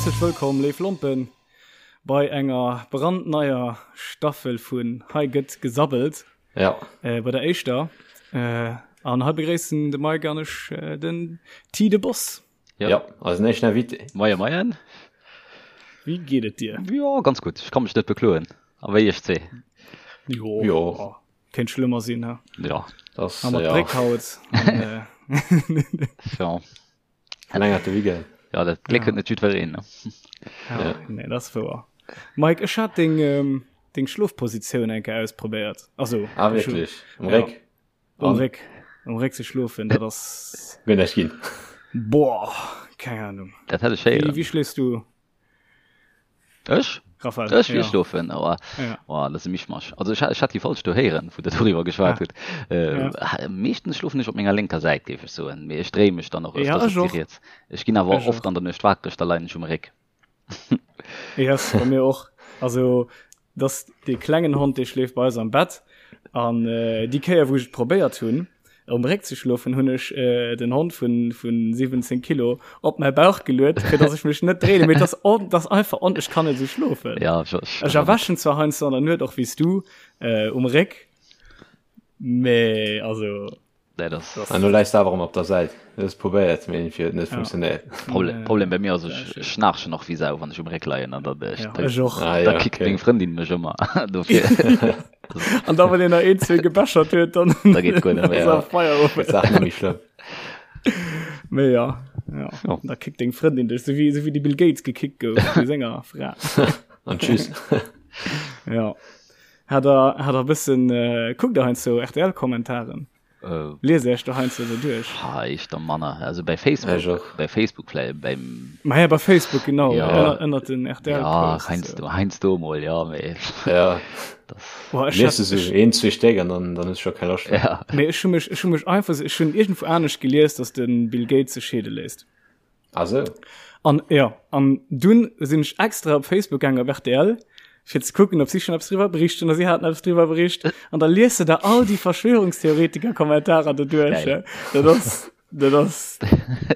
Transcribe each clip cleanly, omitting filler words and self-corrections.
Häerzlech wëllkomm, léif Lompen, bei enger brandneier Staffel vun Hei gëtt gesabbelt. Ja. Äh, bei der éischter. Äh, an hei begréissen de Mike an ech äh, den T de Boss. Ja, ja eisen éischten Invité. Moie, moien. Wéi geet et dir? Jo, ganz gutt. Ech ka mech net bekloen. A wéi iech zwee? Jo. Jo. Oh, kéint schlëmmer sinn, he? Ja. Das, Haben wir ja. Dréck haut. An, äh, Ja. Verlängerte Weekend. Ja, dat Gléck huet net jiddwereen, ne? Ja, ja. Nee, dat ass wouer. Mike, ech hat deng, ähm, deng Schlofpositioun eng Kéier ausprobéiert. Also, ah, wierklech? Um Réck? Ja. Um Réck. Um Réck ze schlofen, dat ass. Gëtt näischt ginn. Boah, keng Ahnung. Dat hätt ech héieren. Wéi, wéi schléifs du? Ech? Raphael, Ech ja. wéi schlofen, awer Ja. oh, dat ass e Mischmasch. Also ech, ech hat déi falsch do héieren, wou der doriwwer geschwat Ah. hutt. Äh, Ja. Meeschtens schlofen ech op menger lénker Säit, géif ech soen, mee ech dréie mech dann och Ja, öfters ech op déi och. riets. Ech ginn awer Ech oft och. an der Nuecht wakereg, da leien ech um Réck. Yes, bei mir och. Also dass dee klengen Hond, dee schléift bei eis am Bett an äh, déi Kéier, wou ech et probéiert hunn, um Réck ze schlofen, hunn ech äh, den Hond vun, vun 17 Kilo op mäi Bauch geluet, fir dass ech mech net dréinen. Mee das, on, das einfach on, ech kann net esou schlofen. Ja, ech, ech, Ech erwächen zwar heiansdo an der Nuet och wéi s du äh, um Réck, mee also Nee, das, An du läis awer ëmmer op der Säit. Du hues probéiert, mee irgendwie huet et net Ja. funktionéiert. Problem, Nee. Problem bei mir ass, ech Sehr schön. schnarchen och wéi Sau, wann ech um Réck leien an dann, äh, Ja, da, ech och. Ah, da ja, kickt okay. meng Frëndin mech ëmmer. Dofir, An da wann een nach een, zwee gebechert huet, dann da geet guer net méi. ass Ja. er Feierowend. Gëtt d'Saach net méi schlëmm. Mee ja, ja. Ja. Da kickt deng Frëndin dech, sou wéi, sou wéi de Bill Gates gekickt gouf vu senger Fra. An tschüss. Ja. Hat der, hat der bëssen, äh, kuckt der heiansdo RTL-Kommentaren? Äh, Liest Iech do heiansdo esou duerch? Ha, ich der manner. Also bei Ech Facebook, och. bei Facebook vläicht, beim, Ma ja, bei Facebook, genau, Ja. ënner, ënnert den ja, RTL-Posts. heiansdo, heiansdo mol, ja, mee Ja. das, Boah, ech Lies hat, du sou ech, een, zwee Stéck an dann, dann hues du scho keng Loscht méi. ja. mee ech hu mech, ech hu mech einfach, ech hunn iergendwou anescht gelies, dass de Bill Gates sech scheede léisst. Ah sou. An ja, an dunn sinn ech extra op Facebook gaangen op RTL, fir ze kucken, ob si schon eppes driwwer bericht hunn, a si haten eppes driwwer bericht. An da liest de der all déi Verschwörungstheoretiker-Kommentarer do duerch. Geil. Dat ass, dat ass,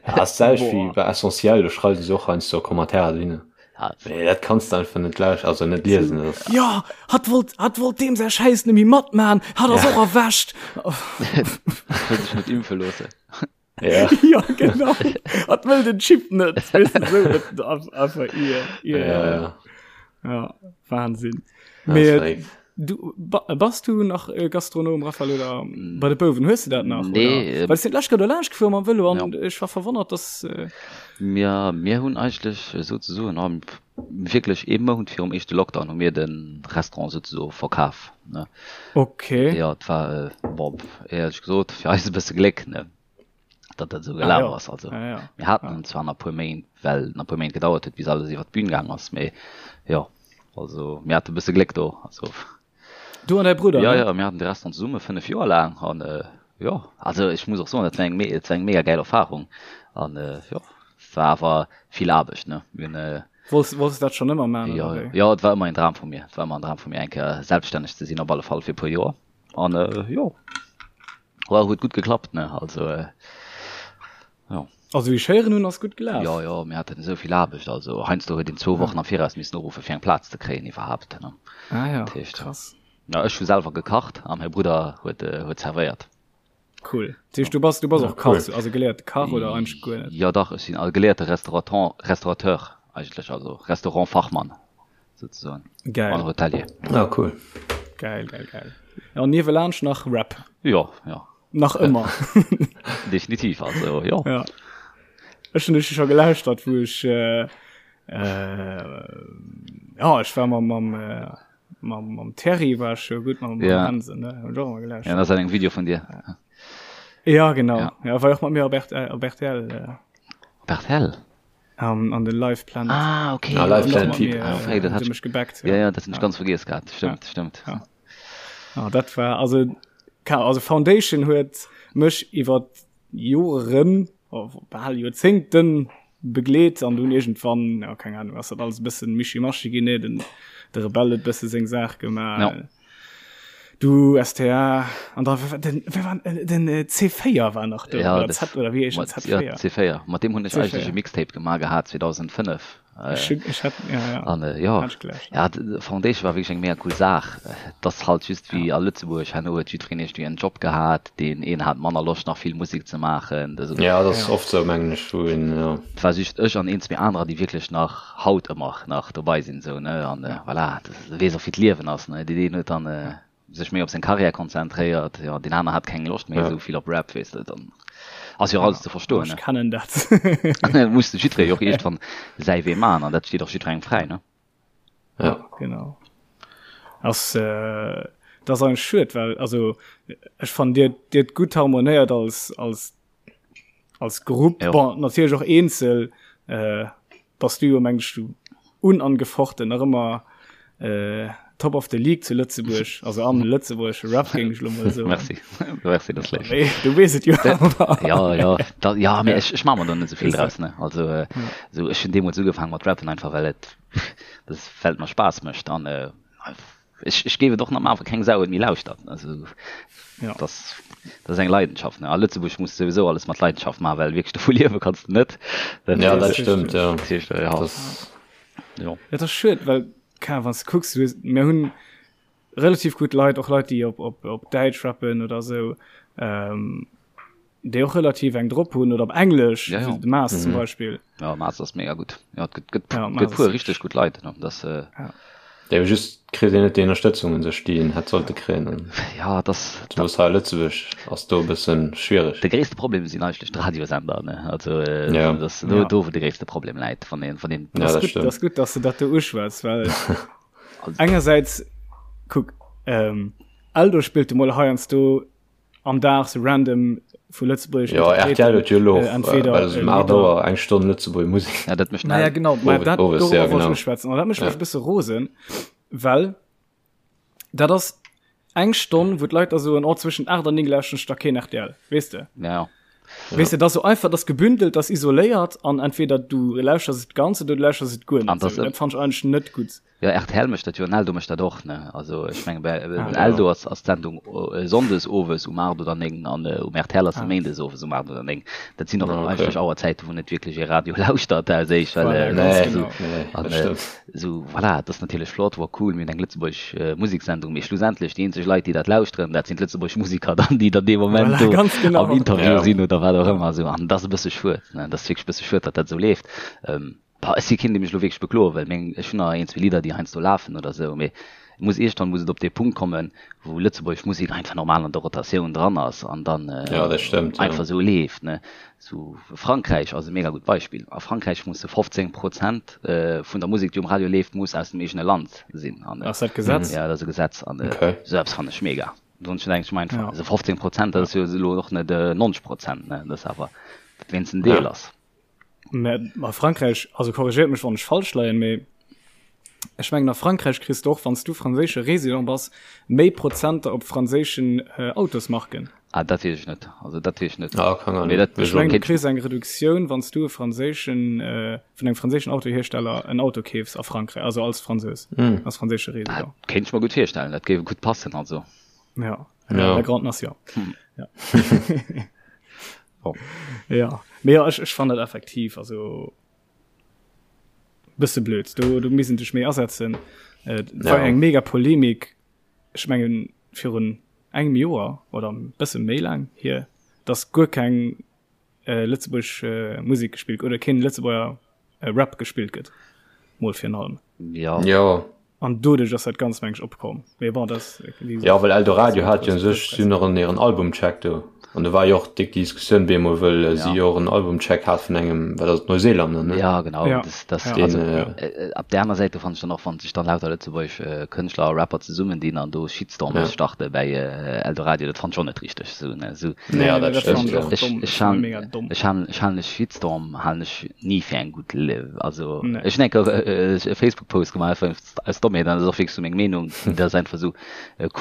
Ja, ass d'selwecht wéi boah. bei Essentiel, do schreiwe se och heiansdo Kommentarer dohinner. Ja, Mee dat kanns de einfach net lauscht, also net liesen. Dat ass, Ja, hatt wollt, hatt wollt deem säi Schäiss net méi matman, hatt ass Ja. och erwächt. Wëll sech net impfe loossen. Ja. ja genau hat wëll den Chip net weißt du, so, dat, einfach ihr, ihr, Ja, ja. ja Wahnsinn Das Mee, ist verrückt. du ba, bass du nach äh, Gastronom Raphael oder bei de Bouwen hues du dat nach Nee, oder? äh, Well ech sinn d'lescht Kéier do laanscht gefuer mam Vëlo an Ja. ech war verwonnert dass äh, Mir, mir hunn eigentlech souzesoen am wierklech ee Mount virum éischte Lockdown hu mir de Restaurant souzesoe verkaf, ne. Okay. Jo, et war, bon, éierlech gesot, fir eis e bësse Gléck, ne, datt dat esou Ah gelaf jo. ass. Also, Ah ja. mir haten Ah. en zwar nach e puer Méint, well nach e puer Méint gedauert huet, bis alles iwwer d'Bün gaang ass, mee jo, also mir hate e bësse Gléck do, also. Du an däi Brudder, Ja, ne? ja, mir haten de Restaurant zesumme 5 Joer laang an jo, also ech muss och soen, dat war eng me dat war eng mega gäil Erfahrung an jo, et war awer vill Aarbecht, ne. Mir hunn. Wollts, wollts de dat schonn ëmmer maachen, Jo, oder wéi? jo, et war ëmmer en Dram vu mir. Et war ëmmer en Dram vu mir, eng Kéier selbststänneg ze sinn, op alle Fall fir e puer Joer an jo, war huet gutt geklappt, ne, also jo. Also wéi ech héieren hunn, ass gutt gelaf. Jo, jo, mir haten esou vill Aarbecht, also heiansdo huet een zwou Wochen am Viraus missen uruffen, fir eng Plaz ze kréien iwwerhaapt, ne. Ah ja, Dat heescht, krass. ja, ech hu selwer gekacht a mäi Brudder huet, huet zerwéiert. Cool. Dat heescht, du bass, du bass Ja, och Kach, cool. also geléierte Kach oder eigentlech guer net? Jo, dach, ech sinn a geléierte Restauraton, Restaurateur eigentlech, also Restaurantfachmann souzesoen Geil. an Hotelier. Ah, cool. Geil, geil, geil. Ja, an niewelaanscht nach Rap. Jo, jo. Nach ëmmer. Definitiv, also jo. Ja. Ech hunn dech scho gelauschtert, wou ech äh, äh, ja, ech war mam mam äh, mam mam Terry war ech scho gutt mam Ja. Hansen, ne? Hunn ech och ëmmer Ja, gelauschtert. dat ass eng Video vun dir. Ja, genau. Ja. Ja, war och mat mir op RTL, op RTL äh, Op RTL? An, an de Live Planet. Ah, okay. Ah, Live Planet Mat Typ. mir, Ah, okay, dat hat hat mech gebackt. Ja, ja, dat hunn ech ganz vergiess gehat. Stëmmt, stëmmt. Ja. Ah, dat war also ka also Foundation huet mech iwwer Joren oh, bal Joerzéngten begleet an dunn iergendwann ja, keng Ahnung ass dat alles e bëssen Mischimaschi ginn, nee, den de Rebell huet bësse seng Saach gemaach. Ja. Du STA an da den wer war den C4 war nach do ja, oder Z oder wéi heescht Z4 ja, C4 mat deem hunn ech eigentlech e Mixtape gemaach gehat 2005 äh, ech hat, ja, ja. An, äh, ja. ja Foundation war wierklech eng mega cool Saach das halt just wéi ja. a Lëtzebuerg herno huet jiddwereen iergendwéi en Job gehat deen een hat manner Loscht nach vill Musek ze maachen also, ja dat ass ja. oft sou mengen ech wou een ja. Et war just ech an een zwee anerer déi wierklech nach haut ëmmer nach dobei sinn sou ne an äh, voilà das weess och wéi d'Liewen ass ne deen een huet dann äh, sech méi op seng Karriär konzentréiert, jo deen aner hat keng Loscht méi esou vill op Rap, weess de, dann ass jo och alles ze verstoen, ne. Ech kennen dat. Muss de jiddweree jo och iergendwann säi Wee maachen an dat steet och jiddwerengem fräi, ne. Ja. Genau. Ass, dat ass eigentlech schued, well also ech fannen dir, dir hutt gutt harmonéiert als, als, als Grupp, bon natierlech och eenzel, bass du jo mengen ech du unangefochten nach ëmmer äh, Top of the League zu Lëtzebuerg, also am lëtzebuergesche Rap géing ech lo mol soen. Merci, merci, dat ass léif. Nee, du weess et jo awer. Ja, ja, da, ja, mee ech, ech maache mer do net esou vill draus, ne. Also, äh, esou, ech hunn deemools ugefaange mat rappen, einfach well et, das, well et mer Spaass mécht an, äh, Ech, ech géif et och nach maachen, wa keng Sau et méi lauschtert. Also, ja. das, das ass eng Leidenschaft. Ne? A Lëtzebuerg muss du souwisou alles mat Leidenschaft maachen, well wierklech dovu liewe kanns du net. Dat, ja, dat stëmmt, ja. Dat heescht, ja. Das... Ja. Ja, dat ass schued, well, keine Ahnung, wann du kucks, du, mir hunn relativ gutt Leit, och Leit, déi op, op, op Däitsch rappen oder sou, ähm, déi och relativ eng drop hunn oder op Englesch, ja, ja. de Maas mhm. zum Beispiel. Ja, Maas ass mega gut. Ja, et gëtt, gëtt, ja, gëtt puer richtig gut Leit. Ne? Das, äh, ja. Ja, just kritt een net déi Ënnerstëtzung un sech, déi een hätt sollte kréien. Ja, das, Zumools hei a Lëtzebuerg ass do e bëssen schwiereg. De gréisste Problem sinn eigentlech d'Radiosender, ne? Also äh, ja. das, do, ja. do wou de gréisste Problem läit, wann een, wann een ja, das dat gut, stimmt. Das gut, dass du dat do uschwätz, well engersäits kuck ähm, Eldo spillt du mol heiansdo am Dag sou random vu lëtzebuergeschen Jo, RTL huet jo elo och, entweder well se um 8 Auer eng Stonn Lëtzebuerger Musek. Ja, dat mécht Naja, genau, ma dat Owes, dorobber ja, wollt ech genau. uschwätzen. An dat mécht mech Ja. e bësse rosen, well dat ass eng Stonn, wou d'Leit da soen, oh, zwëschent 8 an 9 lauschteren ech da keen RTL, weess de? Ja. Weess de, dat ass sou einfach, dat ass gebündelt, dat ass isoléiert an entweder du lauschters et ganz oder du lauschters et guer An net. dat Sou, dat fannt ech eigentlech net gutt. Jo, rtl mécht dat jo an Eldo mécht dat och, ne? Also ech menge bei Ah. Eldo ass ass d'Sendung sonndes owes um 8 oder 9 an um rtl ass se méindes owes um 8 oder 9. Dat sinn och Ah, okay. eigentlech Auerzäite wou net wierklech ee Radio lauschtert aus éischt, well Voilà, äh, ganz Nee, genau. nee, an dat äh, stëmmt. sou voilà, et ass natierlech flott, wor cool, mir hunn eng lëtzebuergesch Museksendung, mee schlussendlech déi eenzeg Leit déi dat lauschteren, dat sinn d'lëtzebuergesch Museker dann, déi dann dee Moment Voilà, do ganz genau. am Interview Ja. sinn oder wat och ëmmer sou an dat ass e bësse schued, ne? Dat ass wierklech e bësse schued, datt dat esou leeft. Ähm, Bah, ech si keen, dee mech elo wierklech bekloe wëll. Meng, ech hunn nach een, zwee Lidder, déi heiansdo lafen oder esou, mee et muss iergendwann muss et op dee Punkt kommen, wou lëtzebuergesch Musek einfach normal an der Rotatioun dran ass an dann Ja, dat stëmmt, ja. einfach esou leeft, ne. Sou Frankräich ass e mega gutt Beispill. A Frankräich musse 15 Prozent vun der Musek, déi um Radio leeft, muss aus dem eegene Land sinn. An, Ass dat Gesetz? Ja, dat ass e Gesetz. An Okay. esou eppes fannen ech mega. Sonst denke ech mer einfach, Ja. also 15 Prozent, dat ass jo elo och net 90 Prozent, ne, dat ass awer, datt wéinstens en Deel Ja. ass. Mä a Frankräich, also korrigéiert mech wann ech falsch leien, mee ech mengen a Frankräich kriss de och, wann s du franséische Résident bass, méi Prozenter op franséischen Autosmarken. Ah, dat weess ech net. Also dat weess ech net. Ah, kann Mee dat Ech mengen du kéint kriss eng Reduktioun, wann s du e franséischen, vun engem franséischen Autohiersteller en Auto keefs a Frankräich, also als Fransous, als franséische dat Résident. kéint ech mer gutt virstellen. Dat géif gutt passen, also. Ja, Ja. la grande nation. Ja. Oh. Ja, mee ja, ech, ech fannen dat effektiv, also bësse blöd. Do, do missten sech méi asetzen. Äh, et war Ja. eng mega Polemik, ech mengen virun engem Joer oder e bësse méi laang hier, dass guer keng äh, lëtzebuergesch äh, Musek gespillt oder keen Lëtzebuerger äh, Rap gespillt gëtt. Mol virun allem. Ja. Ja. An doduerch ass dat Ganzt, meng ech, opkomm. Mee bon, dat ass, wéi gesot, Ja, well Eldoradio dat hat jo ass un sech, si hunn och en hiren Albumcheck do. An do war jo och déck déi Diskussioun bemol, wëll si Ja. jo och en Albumcheck hat vun engem, wat ass et, Neuseelander, ne? Ja, genau. Ja. Das, das, Ja. Deen, also, äh, äh, op der aner Säit, do fand ech dann och, wann sech dann lauter lëtzebuergesch äh, Kënschtler a Rapper zesummen dinn an do Shitstorms Ja. starte bäi äh, Eldoradio, dat fand ech och net richteg. Sou, ne, sou. Nee, Ja, nee, dat dat stëmmt, fand ech ja. och Ech, domm. ech Dat fand han, ech mega domm. ech han, ech halen e Shitstorm halen ech ni fir eng gutt, also Nee. ech hunn eng Kéier e Facebook Post gemaach einfach aus Dommheet an dat ass och wierklech sou meng Meenung, dat ass einfach sou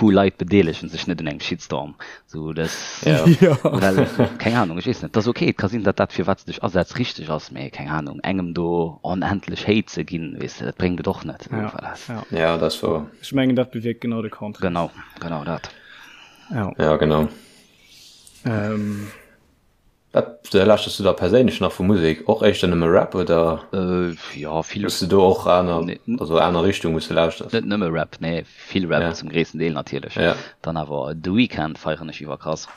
cool Leit bedeelegen sech net un engem Shitstorm, sou dat Ja. Ja. Well, keng Ahnung, ech weess net, dat ass okay, et ka sinn, datt dat, fir wat s de dech asetz, richteg ass, mee keng Ahnung, engem do onendlech Hate ze ginn, weess de, dat bréngt et och net. Ja, Voilà. ja. Ja, dat ass wouer. Ech mengen, dat bewierkt genau de Contraire. Genau, genau dat. Ja. Ja, genau. Ähm. Wat lauschters du da perséinlech nach vu Musek? Och éischter nëmme Rap oder Jo, vill. Hues du do och aner, also aner Richtung wou s du lauschters? Net nëmme Rap, nee, vill Rap zum gréissten Deel natierlech. Dann awer The Weeknd feieren ech iwwerkrass.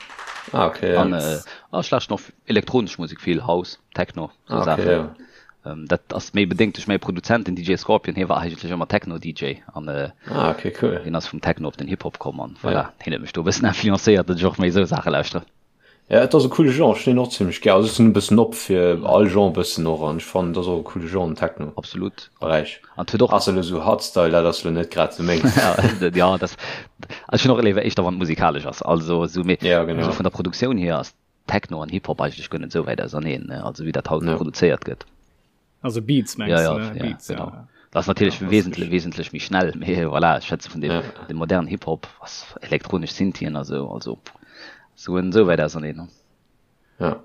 Ah okay, ja. An ech lauschten och elektronesch Musek vill, House, Techno, sou Saachen. Dat ass méi bedéngt duerch mäi Produzent, den DJ Scorpion, hie war eigentlech ëmmer Techno-DJ an hien ass vum Techno op den Hip-Hop komm an voilà, hien huet mech do e bëssen influencéiert, datt ech och méi esou Saache lauschtere. Ja et ass e coole Genre, ech hunn deen och zimmlech gär. Also ech sinn e bëssen op fir all Genre e bëssen och an ech fannen et ass och e coole Genre den Techno. Absolut. Beräich. An et huet och. Ass elo sou Hardstyle, dat ass elo net grad sou mengs. Ja dat, also ech hunn och léiwer éischter wann et musikalesch ass, also sou mee Ja genau. sou vun der Produktioun hier ass Techno an Hip Hop eigentlech guer net sou wäit auserneen, ne, also wéi dat haut produzéiert gëtt. Also Beats mengs ja, du, ja, ne? Ja, Beats, genau. ja. Dat ass natierlech Ja, das wesentlech, ist- wesentlech méi schnell, mee voilà, ech schwätze vun dem, Ja. dem modernen Hip-Hop, was elektronesch Synthien a sou, also sou en sou wäit auserneen, ne? Ja.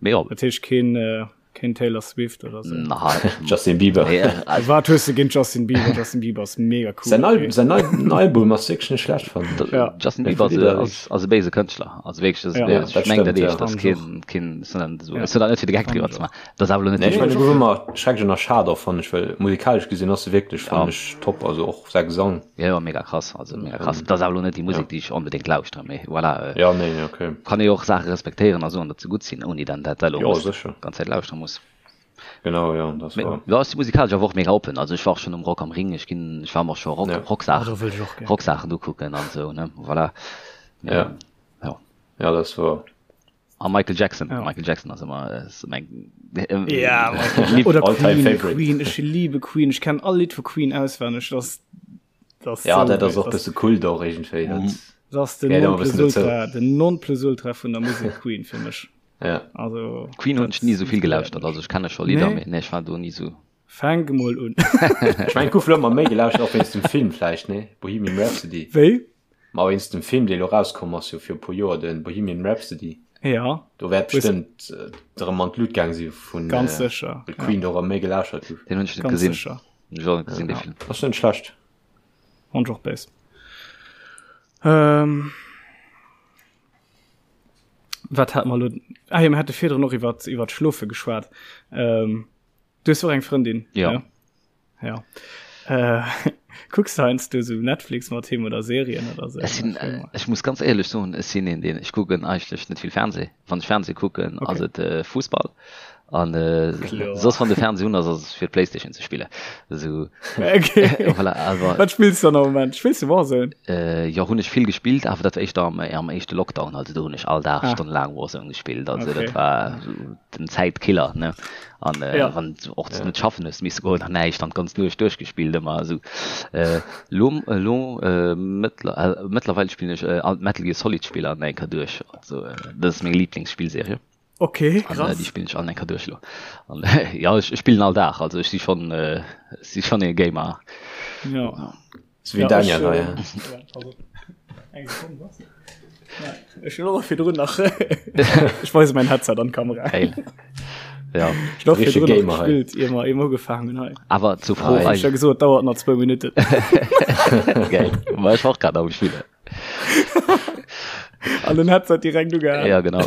Mee jo. Dat heescht keen, äh, keen Taylor Swift oder sou? Na, Justin Bieber. nee, also, Wat hues du géint Justin Bieber? Justin Bieber ass mega cool. Säin Al okay. säin neien Album ass wierklech net schlecht, fannen ech. Ja. Justin Mir Bieber ass, Lidder ass, ass e béise Kënschtler, also wierklech, das, Ja. Ja, ech dat meng dat stëmmt, ja. eescht, das Fand keen, keen, sondern so, Ja. ech soll dat net fir de Geck Fand driwwer ich ze och. maachen. Dat ass awer elo net Nee, ech déi mengen, e gouf ëmmer schrecklech ënnerschat och, fannen ech, well musikalesch gesinn ass e wierklech, fannen Ja. ech, top, also och säi Gesang. Jo, jo, mega krass, also mega krass. Dat ass awer elo net déi Musek, déi ech onbedéngt lauschteren, mee voilà, Ja, nee, okay. kann ee jo och Saache respektéieren a soen, datt se gutt sinn, ouni dann dat elo Jo, muss sécher. ganz Zäit lauschtere muss. Genau, jo, dat ass Mee wahr. jo, ech si musikalesch awer och mega oppen, also ech war och schonn um Rock am Ring, ech ginn, ech war mer och scho Rock, Ja. Oh, Rocksaachen, do wëll ech och gär. Rocksaachen ukucken an esou, ne, voilà. Mee Ja. jo. Ja, dat ass wahr. A Michael Jackson. Ja. Michael Jackson ass ëmmer ass meng Ja, Michael. Oder All-time Queen, favorite. Queen, ech liebe Queen. Ech kenn all Lidd vu Queen auswenneg. Das, das Ja, so dat ass geil. och bësse Kult och iergendwéi. Mhm. Dat, Das ass den gehéiert ëmmer bëssen dozou. Nonplusultra, den Nonplusultra vun der Musek Queen fir mech. Ja. Also, Queen hunn ech dat ni sou vill inspiréiert gelauschtert, mech. also ech kenne scho Lidder, Nee? mee nee, ech war do ni sou. Fänk emol un. Ech mengen, et gouf elo ëmmer méi gelauschtert, och wéinst dem Film vläicht, nee? Bohemian Rhapsody. Wéi? Ma wéinst dem Film, dee elo rauskomm ass, jo fir e puer Joer, de Bohemian Rhapsody. Ja. Do wäert Hues- bestëmmt äh, erëm an d'Lut gaang si vun Ganz äh, sécher. well Queen do erëm méi gelauschert gouf. Den hunn ech net Ganz gesinn. sécher. Hunn ech och net gesinn, dee Ja. Film. Ass net schlecht. Fand ech och béis. Ähm, wat hat mer elo? Ah jo, mir hate virdrun och iwwer iwwer d'Schlofe geschwat. Ähm, du hues och eng Frëndin? Ja. Ne? Ja. Äh, kucks du heiansdo sou Netflix mat him oder Serien oder sou? Ech sinn, äh, ech muss ganz éierlech soen, ech sinn een, deen, ech kucken eigentlech net vill Fernseh. Wann ech Fernseh kucken, Okay. ass et äh, Fussball. An äh, Kloer. soss wann de Fernseh un ass, ass et fir d'Playstation ze spillen. Esou, Okay. voilà, awer Wat spills du dann am Moment? Spills du Warzone? äh, jo, hunn ech vill gespillt, awer dat war éischter am, am éischte Lockdown. Also do hunn ech all Dag Ah. stonnelaang Warzone gespillt. Also Okay. dat war sou den Zäitkiller, ne? An äh, Ja. wann du och net schaffen hues misse goen an näischt an d'ganz Nuecht duerchgespillt ëmmer esou. Äh, lo lo äh, mëttler, äh, mëttlerweil spillen ech äh, all d'Metal Gear Solid Spiller an enker duerch. Also äh, dat ass meng Lieblingsspillserie. Okay, An äh, krass. déi spillen ech all enker duerch lo. An äh, ja, ech, ech spillen all Dag, also ech si schon äh, si schon ee Gamer. Ja. Ja. So wéi Daniel hei. Ech hunn och virdrun nach Ech weise mein Headset an d'Kamera. Geil. Ja. Ech hunn och Richtige virdrun nach Gamer hei. gespillt, ier mer ier mer ugefaangen hunn hei. Awer zur Fro Ei. Ech hu gesot, et dauert nach zwou Minutten. Geil. Ma ech war och grad am Spillen. An den Headset direkt ugehaen. Ja, genau.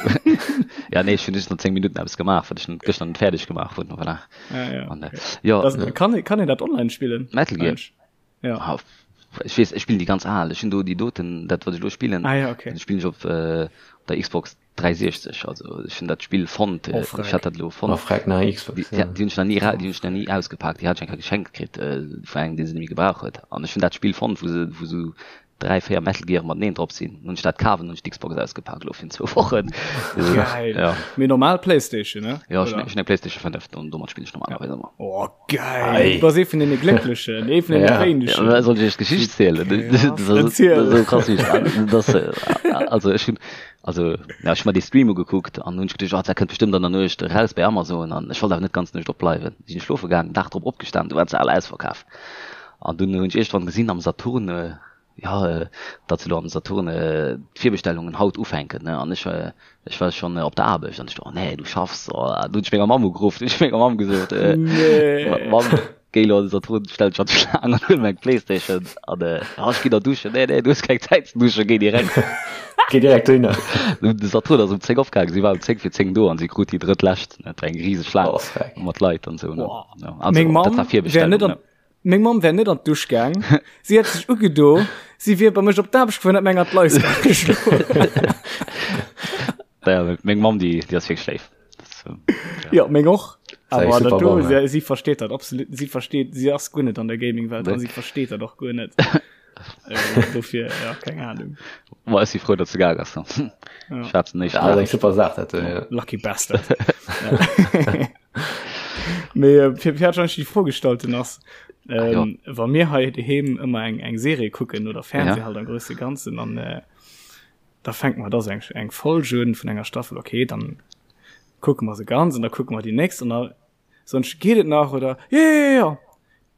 Ja, nee, ech hunn just nach 10 Minutten eppes gemaach, wat ech gëschter net fäerdeg gemaach hunn. Voilà. Ja, ja. An, äh, ja, Das, kann, kann een dat online spillen? Metal Gear. Mensch. Ja. Ah, ech weess, ech spillen déi ganz al. Ech hunn do déi doten, dat wat ech elo spillen, Ah ja, okay. dat spillen ech op, äh, op der Xbox 360. Also ech hunn dat Spill fonnt, Oh, äh, ech freck. hat dat elo Oh, fonnt. freck, na Xbox, Déi, ja. déi hunn ech nach ni, déi hunn ech nach ni ausgepaakt. Déi hat ech eng Kéier geschenkt kritt, äh, vun engem, dee se net méi gebraucht huet. An ech hunn dat Spill fonnt, wou se, wou sou 3, 4 Metal Gear mateneen drop sinn. Hunn ech dat kaf an hunn ech d'Xbox ausgepaakt elo virun zwou Wochen. Geil. Ja. Mee normal Playstation, ne? Ja, ech Oder? hunn eng Playstation 5 an domat spillen ech normalerweis ëmmer. Oh, geil. Ei. Du bass ee vun deene Glécklechen, ee vun deene Ja. Ja, Wéinegen. aber soll ich iech d'Geschicht zielen? Krass. Das ass Erziel. das ass esou krass, wéi ech das, also ech hunn, also ja, ech hunn mer dee Stream ugekuckt an hunn ech geduecht, oh, dat kënnt bestimmt an der Nuecht eraus bei Amazon an ech wollt awer net d'ganz Nuecht opbleiwen. Sinn ech schlofe gaangen, Dag drop opgestan, du waren se all ausverkaf. An dunn hunn ech iergendwann gesinn am Saturn. Jo, datt se elo am Saturn d'Virbestellungen haut ufänken, ne? An ech, ech war schonn op der Aarbecht an ech do, oh nee, du schaffs, oh. An du hunn ech menger Mamm ugeruff, du hunn ech menger Mamm gesot, Mamm, géi elo an de Saturn, stell dech an d'Schlaang an huel mer eng Playstation. An, jo, ech ginn der duschen. Nee, nee, du hues keng Zäit ze duschen, géi direkt. Géi direkt dohinner. De Saturn ass um 10 opgaangen, si war um 10 fir 10 do an si krut déi drëttlescht, ne? Et war eng riseg Schlaang mat Leit an esou, ne? Jo, also, dat war Virbestellung, ne? Meng Mamm wär net an d'Dusch gaang, si hätt sech ugedo, si wier bei mech op d'Aarbecht gefuer an hätt mir eng an d'Leis geschloen. Ja, meng Mamm, déi, déi ass wierklech léif. So, ja. ja, meng och. Awer dat do, si, si versteet dat absolut, si versteet, si ass guer net an der Gaming-Welt an si versteet dat och guer net. äh, dofir, ja, keng Ahnung. Ma ech si frou, datt se gaang ass. Ja. Schwätzen nicht. Ja, eng super Saach, dat, ja. Lucky Bastard. ja. Mee äh, fir fir hat die Fro gestallt den ass ähm, ah, wa mir hei doheem ëmmer eng eng Serie kucken oder Fernseh ja. halt am größte Ganzen an äh, da fängt man das eng eng Folge un vun enger Staffel okay dann kucke mer se ganz an da kucke mer die nächst an da sonst geht et nach oder ja ja ja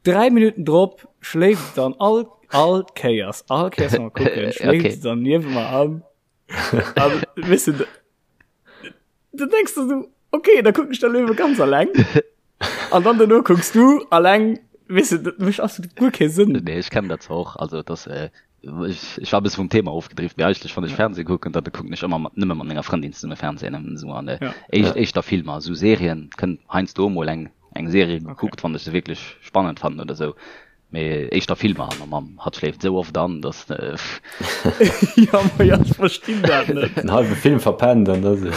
drei Minuten drop schläft dann all all Kéiers all Kéiers mal gucken schläft okay. dann niewent mer an an wisse Du denkst du so, okay, da gucken ich da Löwe ganz allein. An dann danach guckst du allein, weißt du, das macht absolut gar keinen Sinn. Nee, ich kenn dat och. Also das, äh, ich, ich war e bësse vum Thema ofgedrift, mee eigentlech wann ech Fernseh kucken, dann kucken ech ëmmer mat, nëmme mat menger Frëndin zesumme Fernsehen, esou an äh, ja. éischt, ja. éischter Filmer, esou Serien, kënnt heiansdo mol eng, eng Serie gekuckt, okay. wann ech se wierklech spannend fannen oder esou. Mee éischter Filmer an mam hatt schléift esou oft an, dass. Ja, ma ja, ech verstinn dat net. En halbe Film verpennt an da se.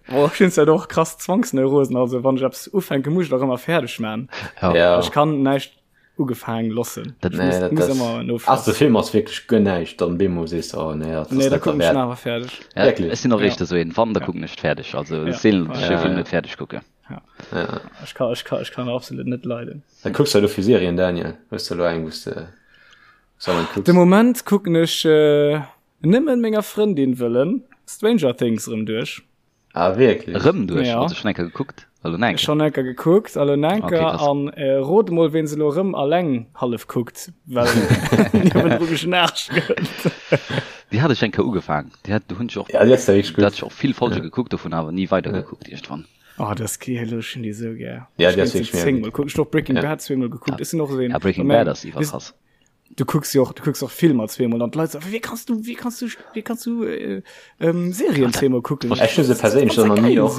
Boah, ech hunn zwar och krass Zwangsneurosen, also wann ech eppes ufänken, muss ech et och ëmmer fäerdeg man. Ja. Ja. Ech kann näischt ugefaang loossen. Dat, nee, dat, muss ëmmer no. Ass de Film ass wierklech guer näischt, dann bemol sees de, oh nee, dat ass net derwäert. Nee, da kucken ech en awer fäerdeg. Ja, Wierklech? Ech sinn och éischter esou een, wann, da kucken ech et fäerdeg. Also ech seelen, datt ech e Film net fäerdeg kucken. Ja. Ja. Ech kann, ech kann, ech kann absolut net leiden. Wat kucks du elo fir Serien, Daniel? Hues du elo eng, wou s de dauernd kucks? De Moment kucken ech äh, nëmmen menger Frëndin wëllen Stranger Things erëm duerch. Ah, wierklech? Erëm duerch? Ja. Also schon eng Kéier gekuckt? Elo nach eng Kéier? Schon eng Kéier gekuckt, elo nach eng Kéier. Okay, an äh, rot mol, ween se elo erëm alleng hallef kuckt, well niewendru geschnarcht gëtt. Déi hat ech eng Kéier ugefaang. Déi hat, do hunn ech och, ja, déi ass wierklech gutt. Do hat ech och vill Folge ja. gekuckt, dovun awer ni weider ja. gekuckt iergendwann. Oh, das geil, ech hunn déi sou gär. Ja, déi ass wierklech mega gutt. Kuck, ech och Breaking ja. Bad zweemol gekuckt. Ja. Ech sinn och esou een. Ja, Breaking Bad ass iwwerkrass. Du kucks jo och, du kucks och Filmer zweemol an d'Leit soen, wéi kanns du, wéi kanns du, wéi kanns du äh, ähm, Serien zweemol kucken? Ech hunn se perséinlech och nach ni och,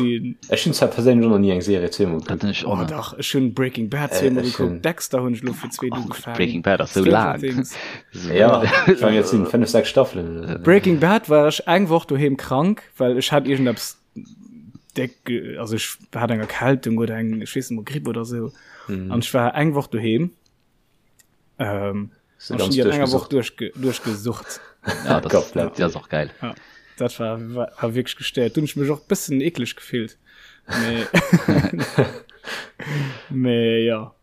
ech hunn zwar perséinlech och nach ni eng Serie zweemol gekuckt. Dat hunn ech och Oh dach, ech hunn Breaking Bad zweemol gekuckt, Dexter hunn ech elo fir zweet ugefaangen. Breaking Bad ass sou laang. Ja, ech mengen et sinn 5, 6 Staffelen oder sou. Breaking Bad war ech eng Woch doheem krank, well ech hat iergendeppes déck, also ech hat eng Erkältung oder eng, ech weess net mol, Gripp oder sou. An ech war eng Woch doheem. Ähm, Hast du ganz an enger Woch duerchge duerchgesucht. Ja, das, Komplett. das ist auch geil. Ja, dat war, war, war wirklich gestéiert. Du hunn ech mech och bëssen eekleg gefillt. Mee, mee ja.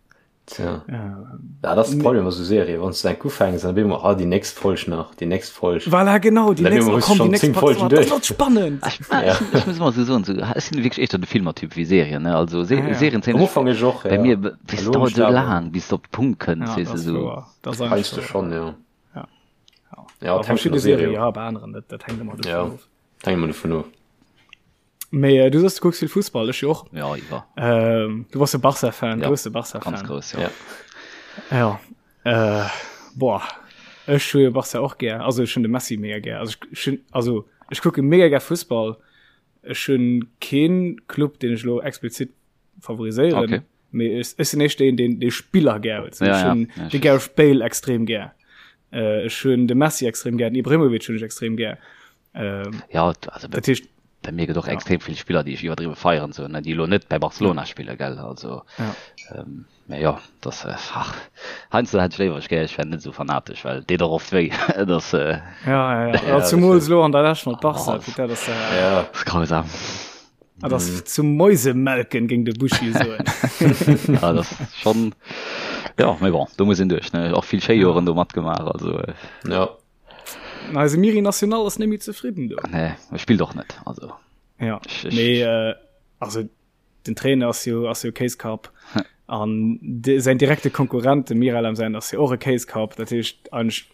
Tja. Ja, dat ass de Problem bei sou Serien, wann s du eng ufänks, dann op eemol, ah, déi nächst Folg nach, déi nächst Folg. Voilà, genau, déi Dann nächst, op eemol oh hues du komm, déi schonn nächst 10 Part, Folgen oh, dat duerch. wird spannend. Ech, ah, Ja. ech, ech muss ëmmer sou soen, sou, ech sinn wierklech éischter de Filmertyp wéi Serien, ne? Also Se Ah, ja. Serien zéien Am ech Ufank ech och, bei ja. mir, bis Elo hunn dauert ech sou awer. laang, bis de op de Punkt kënns, Ja, weess dat de, ass sou. wouer. Dat ass eigentlich Heiansdo wouer. schonn, ja. Ja. Ja, Bei et hänkt vun der verschiedene Serie Serien, of. ja, bei aneren net, dat hänkt ëmmer dovun Ja, of. et hänkt ëmmer dovun of. Mee äh, du soss, du kucks vill Fussball, ech jo och. Ja, iwwer. Ähm, du bass e Barca-Fan, Ja, grousse Barca-Fan. ganz grouss, ja. Ja. Ja. Äh, boah. Ech hu jo Barca och gär. Also ech hunn de Messi mega gär. Also ech, ech hunn, also ech kucke mega gär Fussball. Ech hunn keen Club, deen ech elo explizit favoriséieren. Okay. Mee ech, ech sinn éischter een, deen dee Spiller gär huet. Ja, Ech ja. hunn Ja, de ech Gareth Bale extrem gär. Äh, ech hunn de Messi extrem gär, den Ibrahimovic hunn ech extrem gär. Ähm, Ja, also dat heescht, bei mir gëtt och ja. extrem vill Spiller, déi ech iwwerdriwwe feieren, sou, ne, déi elo net bei Barcelona spille, gell, also Ja. ähm, mä jo, das, äh, ach, heiansdo hätt ech léiwer, ech gär, ech wär net esou fanatesch, well et deet och oft wéi, das, äh, Ja, ja, ja. Ja, ja das zumools stimmt. elo an der Lescht mat Barca, oh, putain, das, äh, Ja. das ist grausam. ah, das zum Mäusemelken, géing de Buschi soen. Ja, das ist schon, ja, mee bon, do muss een duerch, ne, och vill schéi Joren do matgemaach, also, äh, Ja. Eise Miri National ass net méi zefridden do. Nee, e spillt och net, also. Ja, Ech, ech, mee äh, also den Trainer ass jo ass jo Kéiskapp an de, säin direkte Konkurrent de Miralem säin ass jo och e Kéiskapp, dat heescht eigentlech.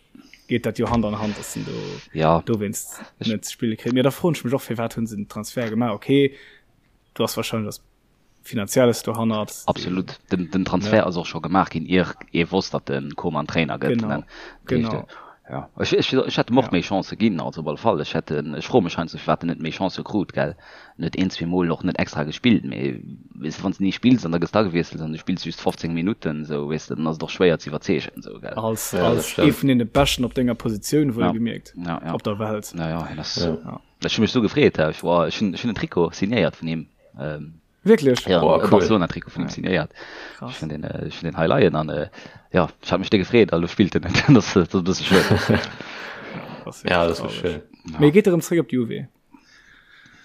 geet dat jo Hand an Hand, dass en do ja. dowéinst net ze spille kritt. Mee da froen ech mech och, firwat hunn se den Transfer gemaach? Okay, du ass wahrscheinlech ass Finanzielles dohannert. Absolut. Den, den Transfer ja. ass och scho gemaach ginn, ier ee wosst, datt de Koeman Trainer gëtt. Genau. Genau. Ja. Ech, ech, ech hätt em och ja. méi Chancë ginn, also op alle Fall. Ech hätt, ech froe mech heiansdo, firwat en net méi Chancë krut, gell. En huet een, zwee Mol och net extra gespillt, mee weess de, wann s de ni spills an da gëss d'agewiesselt an du spills just 15 Minutten, esou, weess de, dann ass et och schwéier ze iwwerzeegen, esou, gell. Als, ja, als ee vun deene Beschten op denger Positioun, wuel ja. gemierkt, ja, ja. op der Welt. Ja, ja, hien ass, ja. Ja. Ech hu mech sou gefreet, ech war, ech hunn, ech hunn en Trikot signéiert vun him. Ähm, Wierklech? Ja, oh, cool. Barcelona-Trikot vun him signéiert. Ech hunn den, äh, ech hunn den hei leien an äh, ja, ech hat mech déck gefreet, a lo spillt en net. Dat ass, dat ass e bësse schued. Ja, dat ass schön. Ja. Mee geet erëm zréck op d'Juve?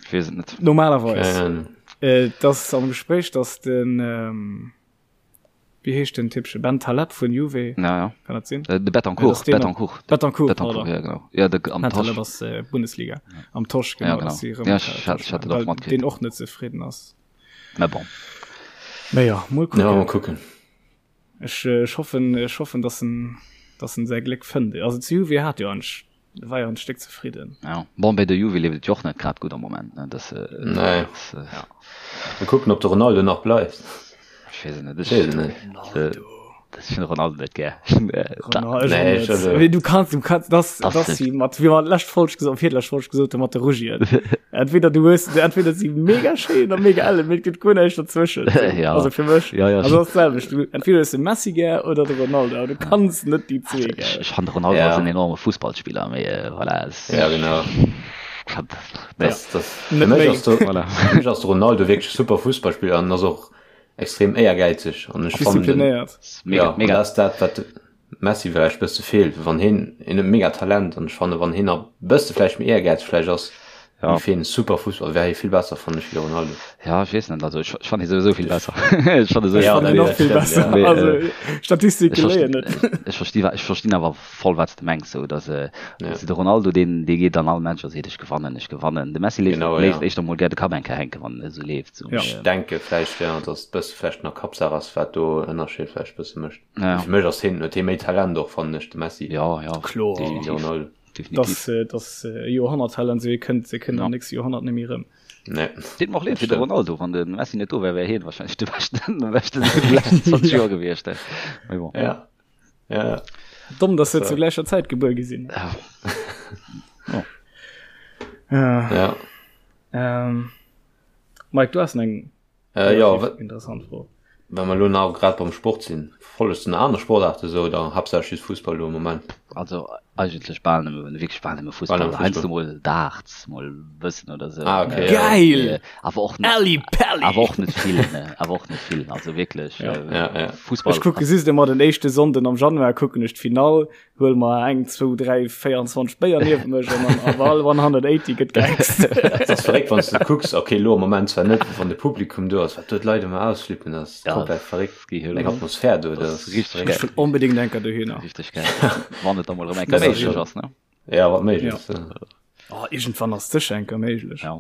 Ich weess et net. Normalerweis. Ähm. Äh, das am Gespräch, dass den ähm, Wéi heescht den Typche? Bentaleb vun Juve? Ja, ja. Kann dat sinn? Äh, de Betancourt. Ja, Betancourt. Betancourt, Betancourt, ja, genau. Ja, de, am Bentaleb Tosch. ass äh, Bundesliga. Ja. Am Tosch, genau. Ja, genau. Dass sie ja, ich, ich hatte doch mal Den och net zefridden ass. Na bon. Na ja, mol kucken. Ja, mal kucken. Ech, äh, ech hoffen, ech hoffen, dass en, dass en säi Gléck fënnt. Also zu Juve hat jo ansch war jo en Stéck zefridden. Ja. Bon, bei der Juve leeft et jo och net grad gutt am Moment, ne? Das, äh, nee. das, äh, ja. Mal kucken, ob de Ronaldo nach bleift. Ech weess et net. Ech weess et net. Ronaldo. Das ich Ronaldo net gär. Ronaldo, nee, ich also. Du kannst, du kannst, das, das, das sie mat, wie man lescht Folg gesot, virlescht Folg gesot, mat de Rugien. Entweder du hues, entweder si mega schéin oder mega elle, mee et gëtt guer näischt dazwëschen. Ja. Also fir mech. Ja, ja. Also das selwecht. Du, entweder hues de Messi gär oder de Ronaldo, aber du kanns net déi zwee gär. Ech, ech fand de Ronaldo ja. ass en enorme Fussballspiller, mee äh, voilà. Es, ja, genau. Das, das, fir mech ass de, voilà. fir mech ass de Ronaldo wierklech super Fussballspiller an ass och extrem éiergäizeg an ech fannen den, mega, ja, mega. dat ass dat wat Messi vläicht bësse feelt, wann hien, hien huet mega Talent an ech fanne wann hien nach bësse vläicht méi Ehrgäiz vläicht ass, Ja. géif hien super Fussball, wär hie vill besser fannen ech wéi de Ronaldo. Ja, ech weess net, also ech, ech fannen hie souwisou vill besser. Ech fannen Ech Ja, fannen dat och vill stimmt, besser. ja. Mee, Also äh, Statistike ech léien versti, net. ech versti, ech verstinn awer voll wat s de mengs, sou dass, äh, Ja. de Ronaldo deen, dee geet an all Match a seet ech gewannen, ech gewannen. De Messi léisst, Genau, léisst ja. éischter mol gär de Kapp eng Kéier hänken, wann en esou leeft, sou. Ja. Mee, Ech denke vläicht, ja, dass et bësse vläicht nach Kappsaach ass, wat do Ënnerscheed vläicht bësse mécht. Ja. Fir mech ass hien, huet hie méi Talent och, fannen ech, de Messi. Ja, ja. Kloer. Definitiv. Ronaldo. Definitiv. Dass, äh, dass äh, Joerhonnerttalent, se kënnt, se kënnt Ja. am nächste Joerhonnert net méi rëm. Nee. Deet mer och leed fir de Stimmt. Ronaldo, wann de Messi net do wär, wär hien wahrscheinlech de beschten, de beschten vun de leschten 20 Joer gewiescht. Mee bon. Ja. Ja. Domm, dass se So. zu gläicher Zäit gebuer gi sinn. Ja. Oh. Ja. Ja. Ähm, Mike, du has eng Äh, ja, relativ interessant Fro. Wa mer elo nach grad beim Sport sinn, follegt de nach aner Sportaarte sou oder haaptsächlech just Fussball elo am Moment? Also eigentlech bal nëmme, wierklech bal nëmme Bal Fussball. nëmme Heiansdo Fussball. mol Darts, mol e bëssen oder sou. Ah, okay, ja. Geil! Mee awer och net, Ally Pally! awer och net vill, ne, awer och net vill. Also wierklech, Ja. äh, Ja, ja. Fussball Ech kucke just ëmmer den éischte Sonnden am Januar kucken ech d'Finall, huel mer eng, zwou, dräi, 24 Béier niewent mech an dann auf all 180 gëtt gehext. Dat ass verréckt, wann s de kucks, okay, elo am Moment zwar net, wann de Publikum do ass, wat do d'Leit ëmmer ausflippen, dat ass Ja, komplett verréckt. das geht Eng Atmosphär do, Das dat ass ass richtig verréckt. Ech wëll onbedéngt enker dohinner. Richtig geil. Wann et da mol erëm eng Kéier Dat ass méiglech schon. ass, ne? Ja, wat méiglech Ja. ass. Ja. Oh, iergendwann ass sécher enker méiglech. Ja.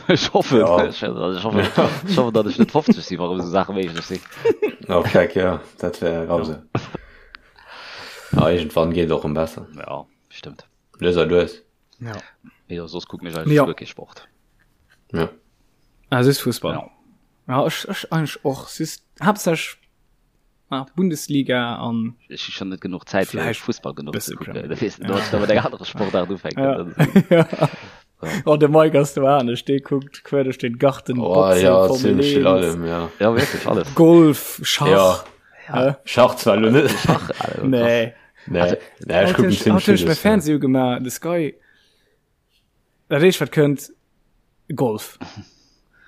Ech hoffen, Ja. ech, ech hoffen, ech hoffen, datt ech net 50 sinn, wa rëm esou Saache méiglech sinn. Oh, keck, ja, dat wär grausam. Ja, iergendwann geet et och rëm besser. Ja, stimmt. Lues a lues. Ja. Mee jo, soss kucken ech eigentlech Ja. guer kee Sport. Ja. Ah, just Fussball. Ja. Ja, ech, ech eigentlech och. Just haaptsächlech ah, Bundesliga an Ech hu schon net genuch Zäit fir Vläicht Fussball genuch ze bësse kucken. Premier Da weess du, da mat eng anere Sportart ufänken. Ja. Dat ist- ja. Oh, de Mike ass do anescht, dee kuckt quer duerch den Garten, Oh, Boxen, ja, Formel ziemlech vill 1, allem, ja. Ja, wierklech alles. Golf, Schach. Ja. Hä? Schach zwar elo net. Schach, also, krass. Nee. Nee, Also, nee, ech Haut kucken hunn ech, ziemlech haut hunn ech villes, mäi ja. Fernseh ugemaach, de Sky. Dat éischt wat kënnt, Golf.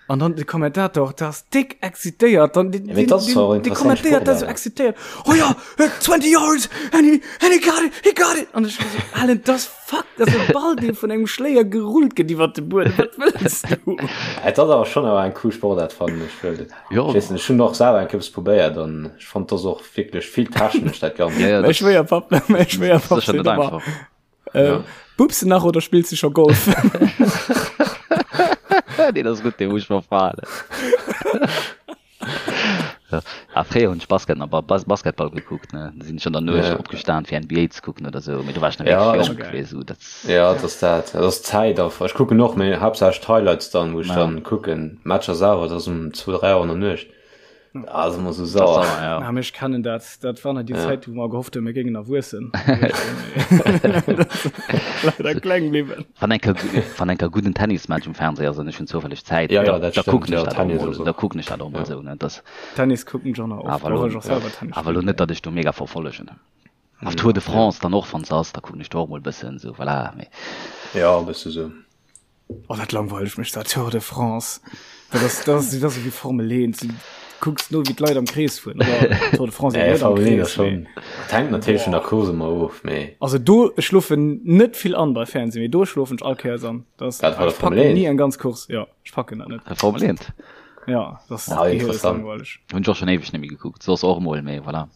An dann de Kommentator, der ass déck excitéiert, dann den, Ja, mee dat ass zwar och den, den interessant kommentéiert dat sou Sportaart. excitéiert. Oh ja, 20 yards and he, and he got it, he got it. An ech so, Alan, das fuck, das ass e Ball, dee vun engem Schléier gerullt gëtt iwwer de Buedem. Wat wëlls du? Et ass awer schonn awer eng cool Sportaart fannen ech well Jo. ech weess net, ech hunn och selwer eng Kéier eppes probéiert an ech fonnt dat ass och wierklech vill technesch dat Ganzt. Ja, ja, Mäi dat Schwéierpapp, mäi Schwéierpapp sécher seet net ëmmer, einfach. Äh, Ja. Bubs du nach oder spillst du scho Golf? Nee, das ist gut, den muss ich mal fragen. Ah, fréier hunn ech Basket nach Bas Basketball gekuckt, ne? Da sinn ech an der Nuecht Ja. opgestan fir NBA ze kucken oder sou, mee do war ech nach Ja, wierklech ech, jonk, weess du, dat ja, dat ass dat. Dat ass d'Zäit einfach. Ech kucken och, mee haaptsächlech d'Highlights dann, wou ech ja, dann kucken. Matcher selwer, dat ass um 2, 3 Auer an der Nuecht. Da ass ëmmer sou dat ass sauer. sauer, ja. Ah, mee ech kennen dat. Dat war nach déi Ja. Zäit, wou mer gehofft hunn, mir géingen erwuessen. Leider kleng bliwwen. Wann eng Kéier, wann eng Kéier gudden Tennismatch um Fernseh ass an ech hunn zoufälleg Zäit, Ja, da, ja, dat da stëmmt. kucken ech Ja, dat och Tennis mol, ass da och. kucken ech dat och mol Ja. sou, ne? Das, Tennis kucken ech och nach oft, awer och lo, ech och selwer Tennis awer lo spillen. net, datt ech do mega verfollegen. Auf Tour de Ja. France dann och, wann se ass, da kucken ech do och mol bëssen, sou, voilà, mee. Ja, e bësse sou. Oh, dat langweilt mech, dat Tour de France. Dat ass, dat ass, dat ass wéi Formel 1. Du kucks no, wéi d'Leit am Krees fueren. Oder Tour de France eben Nee, net am Formel 1 ass Krees, mee. schon. Dat hänkt natierlech vun der Boah. Course ëmmer of, mee. Also do, ech schlofen net vill an bei Fernsehen, mee do schlofen ech all Kéiers an. Das, Dat war der ech Formel packen 1. nie eng ganz Course. Ja, ech packen dat net. Formel 1? Ja, das Ah, gehier ist interessant. langweilig. Hunn ech och schon éiweg net méi gekuckt, soss och mol, mee voilà.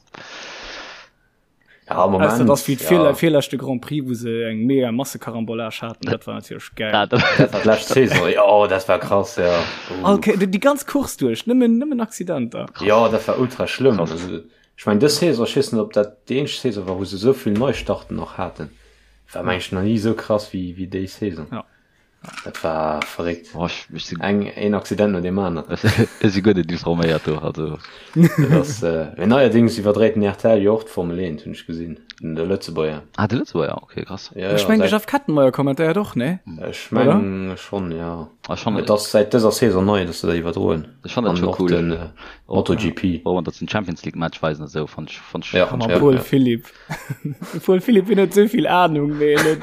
Ja, am Ausser Moment, dass wéi ja. d'virle virleschte Grand Prix, wou se eng mega Massekarambolage haten, dat war natierlech geil. Ah, dat, Dat war d'lescht Saison, jo, dat war krass, ja. All Uh. Kéier, déi ganz Course duerch, nëmmen, nëmmen Accidenter. krass. Jo, dat war ultra schlëmm. Krass. Also, ech mengen, dës Saison, ech weess net, ob dat déi eenzeg Saison war, wou se esou vill Neistarten och haten. War, meng ech, nach ni esou krass wéi, wéi déi Saison. Ja. Dat war verréckt. Oh, ech, ech si, Eng, een Accident no deem aneren. ech, ech si guer net informéiert do, also. Dat ass, äh, mee neierdings iwwerdréit den RTL jo och d'Formel 1, hunn ech gesinn, den de Lëtzebuerger. Ah, de Lëtzebuerger, okay, krass. Ja, Ech ja, mengen, de säit, Jeff Kettenmeyer kommentéiert och, ne? ech Oder? meng schonn, ja. Ah, schon, Et ass säit dëser Saison nei, dass se dat iwwerdroen. ech fand dat An scho och cool. den äh, Och, MotoGP. och wann dat den Champions League Match weisen a sou, fand ech, fand ech, Ja, fand ech Hammer ja, Paul ja. Philipp. Paul Philipp hien huet sou vill Ahnung, mee hien huet,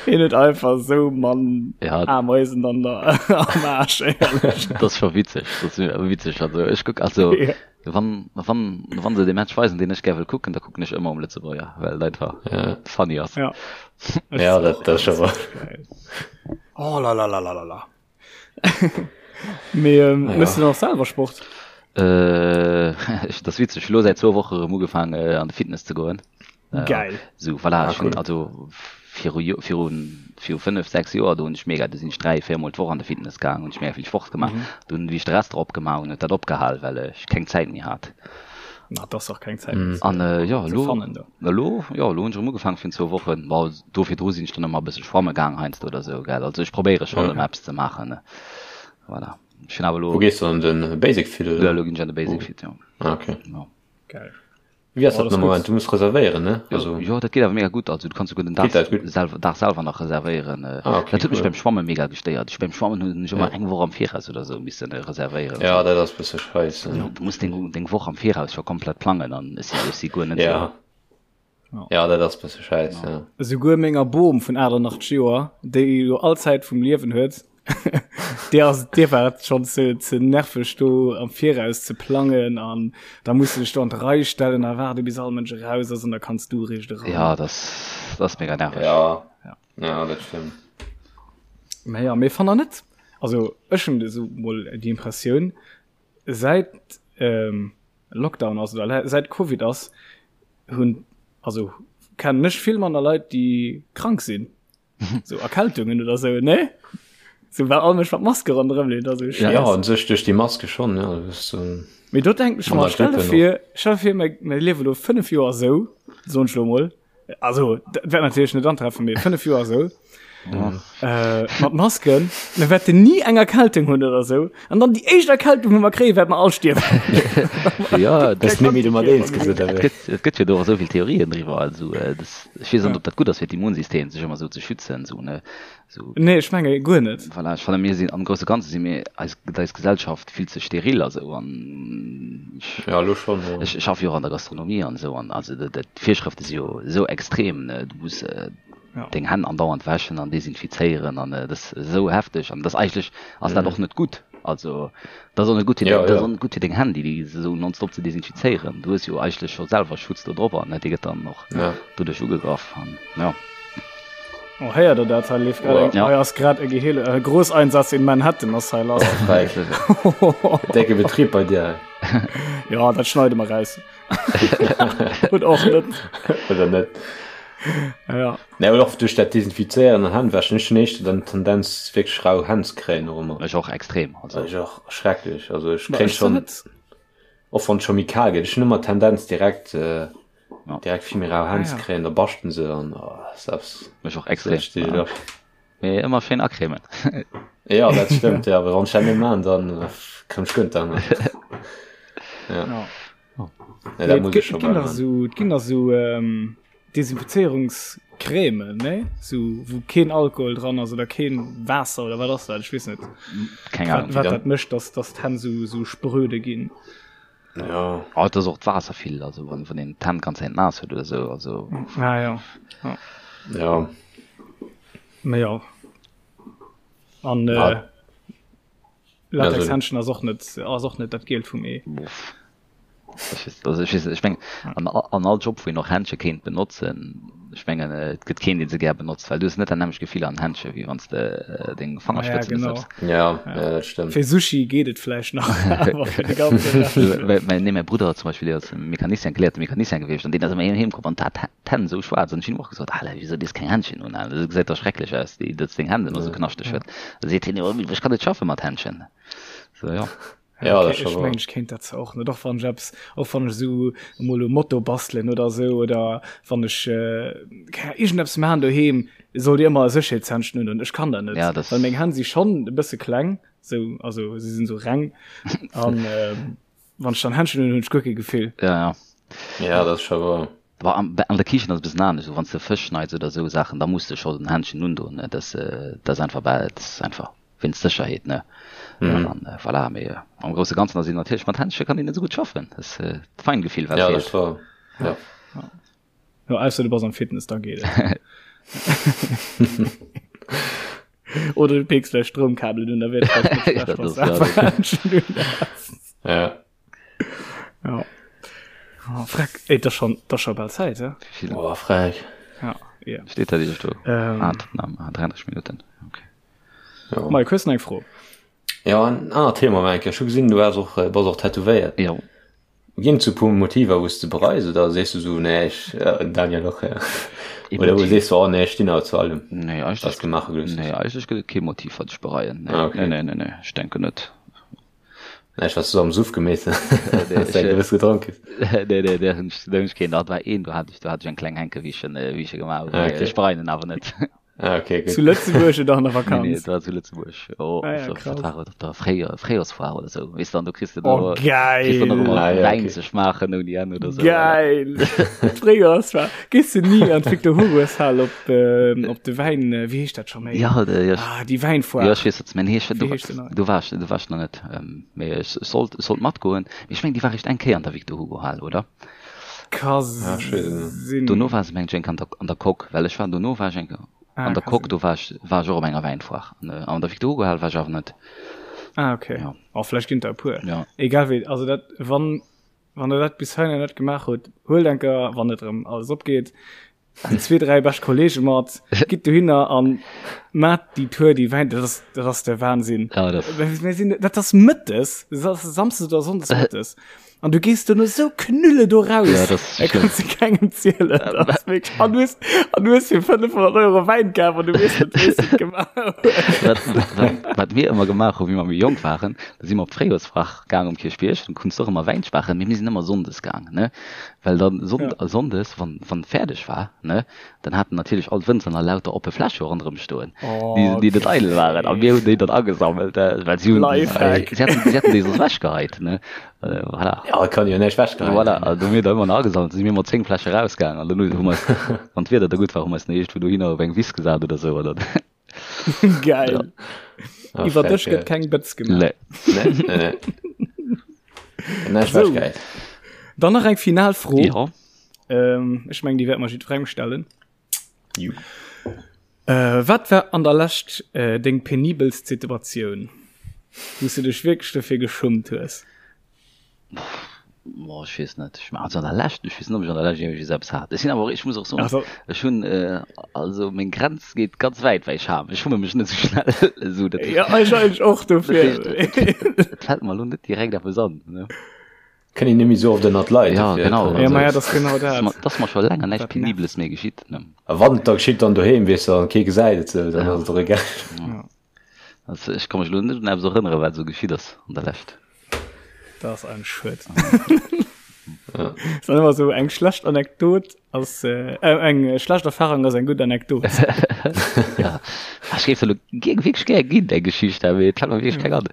hien huet einfach sou Mann Ja. Ameisen an der am Aarsch, éierlech. Dat ass scho witzeg, dat ass witzeg. Also ech kuck, also Ja. wann, wann, wann se de Match weisen, deen ech gär wëll kucken, da kucken ech ëmmer um Lëtzebuerger, well et einfach Ja. funny ass. Ja. Ech Ja, och, dat, dat ass scho wahr. geil. Oh la la la la la la. Mee ähm, Ah, ja. mëss du dann och selwer Sport? Äh, ech, dat ass witzeg, ech hu lo säit zwou Woche erëm ugefaang äh, an de Fitness ze goen. Äh, Geil. Sou, voilà, Ah, ech hunn cool. also viru Jo, viru, viru 5, 6 Joer, do hunn ech mega, do sinn ech 3, 4 mol d'Woch an de Fitness gaang, hunn ech mega vill Sport gemaach. Mhm. Dunn, wéi ech de Restaurant opgemaach hunn, huet dat opgehal, well ech keng Zäit méi hat. Na, et ass och keng Zäit Mhm. méi ze, An äh, jo, ze elo, fannen do. elo, jo, elo hunn ech erëm ugefaangen virun zwou Wochen. Bon, do virdru sinn ech dann ëmmer e bësse schwamme gaang heiansdo oder sou, gell. Also ech probéiere schonn Ja. ëmmer eppes ze maachen, ne. Voilà. Ech hunn awer Wou elo, gees du an den Basic Fit jo, oder? elo ginn ech an de Basic Wou? Fit, jo. Ah, okay. Jo. Geil. Wéi ass Oh, dat dat am ass Moment? gutt. Du muss reservéieren, ne? Jo, Also jo, dat geet awer mega gutt. Also du kanns souguer den Dag geet dat gutt? selwer, Dag selwer nach reservéieren. Ah, okay, Dat huet mech cool. beim Schwamme mega gestéiert. Ech beim Schwammen hunn ech ëmmer Ja. eng Woch am Viraus oder sou missen reservéieren. Ja, Sou. dat ass bësse scheisse. Du du muss deng, deng Woch am Viraus scho komplett plangen an ech si, ech si guer net sou. Ja. Ja. Ja, dat ass bësse scheiss, ja. Esouguer menger Bom vun 88 Joer, déi jo all Zäit vum Liewen huet, déi ass, déi war et schonn ze, ze nerveg do am Viraus ze plangen an da muss du dech do an d'Rei stellen a waarde bis all Mënsch eraus ass an da kanns du eréischt eran. Ja, dat ass, dat ass mega nerveg. Ja, Ja. ja, dat stëmmt. Mä ja, mee fannt der net, also ech hunn esou mol déi Impressioun, säit ähm, Lockdown ass oder säit Covid ass, hunn also kennen ech vill manner Leit déi krank sinn so Erkältungen oder sou ne so well all Mënsch mat Maske ronderëm leeft also ja, ja an sech duerch déi Maske schon ja das, ähm, Mee do denken ech mer stell dir vir stell dir vir mir mir liewe lo 5 Joer sou soen ech lo mol Also dat wäert natierlech net antreffen, mee 5 Joer esou. Äh, mat Masken, mir wäerten ni eng Erkältung hunn oder esou. An dann déi éischt Erkältung, wou mer kréien, wäerte mer all stierwen. Ja, das net méi du mat eens gesot Et gëtt, et gëtt jo do och esou vill Theorien driwwer. Also, äh, das, ech weess net, ob dat gutt ass fir d'Immunsystem, sech ëmmer esou ze schützen, esou, ne? Sou. Nee, ech menge guer net. Voilà, ech fannen, mir sinn, am grousse Ganze si mir, eis, gëtt eis Gesellschaft vill ze steril a sou an ech, Ja, elo schonn, jo. ech schaffe jo och an der Gastronomie an esou an also dat, dat, d'Virschrëfte si jo esou extrem, ne, du muss Ja. deng Hänn andauernd wäschen an desinfizéieren an dat ass esou hefteg an dat ass eigentlech ass dat och net gutt. Also dat ass och net gutt fir Ja, deng, dat ass ja. och net gutt fir deng Hänn, déi déi esou nonstop ze desinfizéieren. Du hues jo eigentlech scho selwer Schutz do drop an dee gëtt dann och Ja. doduerch ugegraff an ja. Oh, héiert der dat? Hei leeft grad eng, Ja. hei ass grad e Geheele, e Großeinsatz in Manhattan ass hei lass. Freck. Decke Betrieb bei dir. Ja, dat schneide mer raus. Oder och net. Oder net. Ja. Nee, awer och duerch dat Desinfizéieren an Hännwäschen, ech hunn éischter dann d'Tendenz wierklech rau Hänn ze kréien och ëmmer. Ech och extrem. Also ech och schrecklech. Also ech Ma kréien ech zwar schon net. Och wann et scho méi kal gëtt, ech hunn ëmmer d'Tendenz direkt äh, ja. direkt vill méi rau Hänn ze ah, ja. kréien, da baschten se an oh, selbst. Mech och extrem. Ja. Mee ëmmer schéin acremen. ja, dat stëmmt, ja, awer wann ech dat net man, dann äh, komm ech guer net an. Ja. Ja. Oh. Ja, dat muss ich schon ginn so, ginn da so ähm, Desinfizierungscreme, ne? So, wou keen Alkohol dran ass oder keen Waasser oder wat ass dat? Ech weess net. Keng Ahnung. Wat, wat dat mécht, dass, dass d'Hänn so, so spröde ginn. Ja. Oh, dat ass och d'Waasser vill, also wann, wann een d'Hänn ganz Zäit naass huet oder sou, also. Ah, ja. Ja. Ja. Mä ja. An, äh, ah. Latexhändschen ass och net ass och net dat Gielt vum Ee. Also ech weess net, ech mengen an an all Job wou een och Händsche kéint benotzen, ech mengen et gëtt keen dee se gär benotzt, well du hues net dat nämmlecht Gefill an Händsche wéi wann s de deng Fangerspëtzen ja, genau. Ja, ja, dat stëmmt. Fir Sushi geet et vläicht nach, awer fir de ganze Rescht. Mä nee, mäi Brudder zum Beispill, dee ass Mecanicien, geléierte Mecanicien gewiescht an deen ass ëmmer heem komm an hat d'Hänn esou schwaarz an ech hunn him och gesot, Alter, wieso dees keng Händschen un, Alter, dat gesäit dach schrecklech aus, déi, datt s deng Hänn ëmmer esou knaschteg huet. Da seet hien, jo, ech kann net schaffe mat Händschen. So, ja. Ja, okay, ech mengen, ech kéint dat zwar och net, och wann ech eppes, och wann ech esou emol um Moto bastelen oder esou oder wann ech äh, keng Ahnung, iergendeppes maachen doheem, sollt Dir ëmmer e Sécherheetshändschen un hunn. Ech kann dat net, ja, das well meng Hänn si schonn e bësse kleng, sou, also si sinn esou reng an ähm, Wann ech dann Händschen hunn, hunn ech guer kee Gefill. Ja, ja. Ja, dat ass scho wouer. Bon, an, an der Kichen ass e bëssen anescht. Wann s de Fësch schneits oder esou Saachen, da muss de scho den Händschen undoen, ne? Dat, dat ass einfach, bah, dat ass einfach wéinst Sécherheet, ne? Mhm. An voilà, mee am grousse Ganzen ass een natierlech mat Händche kann een net esou gutt schaffen. Dat ass d'Feingefill, wat Ja, dat feelt. ass wouer. Ja. Ja, ausser du bass am Fitness, da geet et. Oder du peeks vläicht Stroumkabelen un, da wier et vläicht net schlecht, Dat wann ass, du ja, awer dat- Händschen un häss. Ja. Ja. Oh, freck. Ey, das schon, das schon bald Zeit, ja? Wie viel Oh, frech. Ja, ja. steht da dir do? Ähm. Ah, Tottenham, ah, 33 Minuten. Okay. Ja. Mike, hues du nach eng Fro? Ja, en anert Thema, Mike. Ech hu gesinn, du has och, äh, bass och tätowéiert. Jo. Ginn et sou puer Motiver wou s de bereis oder sees du sou nee ech, Daniel och, oder wou sees du oh nee ech stinn awer zu allem Nee, wat s eigentlech, de maache gelooss nee, hues? eigentlech gëtt et kee Motiv wat ech bereien. Nee, Ah okay. nee, nee, nee, nee, ech denken net. Nee, ech wat s du am Suff gemeet Nee, hues, ech, eng gewëss gedronk hues. nee, nee, där hunn ech, där hunn ech keen. Dat war een, do hat ech, do hat ech eng kleng Henke wéi ech en, wéi ech e gemaach hunn. Ah Mee okay. ech bereien en awer net. Ah, okay, gut. Zu Lëtzebuerg oder an der Nee, nee, Vakanz? dat war zu Lëtzebuerg. Oh, Ah ja, op, krass. wat war et, op der Fréijoer, Fréijoersfoire oder sou. Weess du, an do kriss du Oh, do, kriss du nach geil! ëmmer Ah, ja, Wäin okay. ze schmaachen ouni Enn oder sou. Geil! D'Fréijoersfoire. Gees du ni an d'Victor Hugoshal op, ähm, op de Wäin, äh, wéi heescht dat scho méi? Ja, de, ja, Ah, déi ja, Wäinfoire. ech weess, wat s meng. Nee, ech, Wéi do, heescht se nach? do war ech, do war ech nach net. Ähm, mee ech sollt, sollt matgoen. Mee ech meng, déi war réischt eng Kéier an der Victor Hugo Hal, oder? Ka Ah, ech weess et net. sinn. Dono war se mengt ech eng Kéier an der, an der Coque, well ech war, dono war ech eng Kéier Ah, an der ka Coque, sinn. do war ech, war ech och op enger Wäinfoire. An, äh, an der Victor Hugo Hal war ech awer net. Ah, okay. Ja. Oh, vläicht ginn der e puer. Ja. Egal wéi, also dat, wann, wann der dat bis heihinner net gemaach hutt, huelt eng Kéier, wann et erëm alles opgeet, déi zwee, dräi bescht Kollege mat, gitt dohinner an maacht déi Tour, déi Wäin, dat ass, dat ass de Wahnsinn. Ja, dat. Mir sinn, dat ass mëttes, dat ass samsdes oder sonndes mëttes. An du gees duerno sou knülle do raus. Ja, das ist Da kannst du kengem zielen. Das ist wirklich, an du hast, an du hast fir 500 Euro Wäin kaf an du weess net, wéi s du et gemaach hues. Wat, wat, wat mir ëmmer gemaach hu wéi mer méi jonk waren, da si mer op d'Fréijoersfrach gaang um Kierchbierg, dann konns du och ëmmer Wäin schmaachen, mee mir sinn ëmmer sonndes gaang, ne? Well dann Sonn, Ja. sonndes, wann, wann fäerdeg war, ne, dann haten natierlech all d'Wënzer nach lauter oppe Fläsche ronderëm stoen, déi, Oh, déi net eidel waren. A mir hunn déi dann agesammelt, well si hunn, Lifehack. si haten, si haten déi soss ewechgeheit, ne? Voilà. Ja, kann jo näischt wechgeheit Voilà, ginn. also hu mir da ëmmer nach agesammelt, si mir mat 10 Fläsche rausgaangen an dann hu mer eis, wann d'Wieder da gutt war, hu mer eis nach iergendwou dohinner op eng Wiss gesat oder sou oder. Geil. Ja. Ah, Iwwer frech, Dësch ja. gëtt keng Bëtz gemaach. Nee. Nee, nee, nee. Näischt So. wechgeheit. Dann nach eng final Fro. Ja. Ähm, ech meng, déi wäerte mer jiddwerengem stellen. Ju. Äh, wat war an der Lescht äh, deng penibelst Situatioun, wou s du dech wierklech dofir geschummt hues? Boah, ech weess net. Ech, also an der Lescht, ech weess net, ob ech an der Lescht iergendwéi eppes hat. Ech sinn awer och, ech muss och soen, Also, ech hunn, äh, also meng Grenz geet ganz wäit, well ech ham. Ech schumme mech net esou schnell. Esou, dat heescht, ja, ech eigentlech och dat dofir. heescht, et, et, et fält mer elo net direkt eppes an, ne? Kënnt een net méi sou oft ënnert d'Leit, Ja, dofir genau. kann Ja, een ma ja, sou. dat ass genau Ass dat. mer, ass mer scho länger näischt Dat nervt. Penibeles méi geschitt, ne? A wann et da geschitt, dann doheem, weess de, an kee gesäit et sou, dann Ja. ass et och egal. Ja. Also ech ka mech elo net un eppes erënneren, wat esou geschitt ass an der Lescht. Dat ass ein Schued. Ja. Ist dann immer so eng schlecht Anekdot ass äh, äh, eng schlecht Erfahrung ass eng gutt Anekdot. ja. Ech géif se lo gi- wierklech gär ginn, eng Geschicht, awer et fält mer wierklech keng an.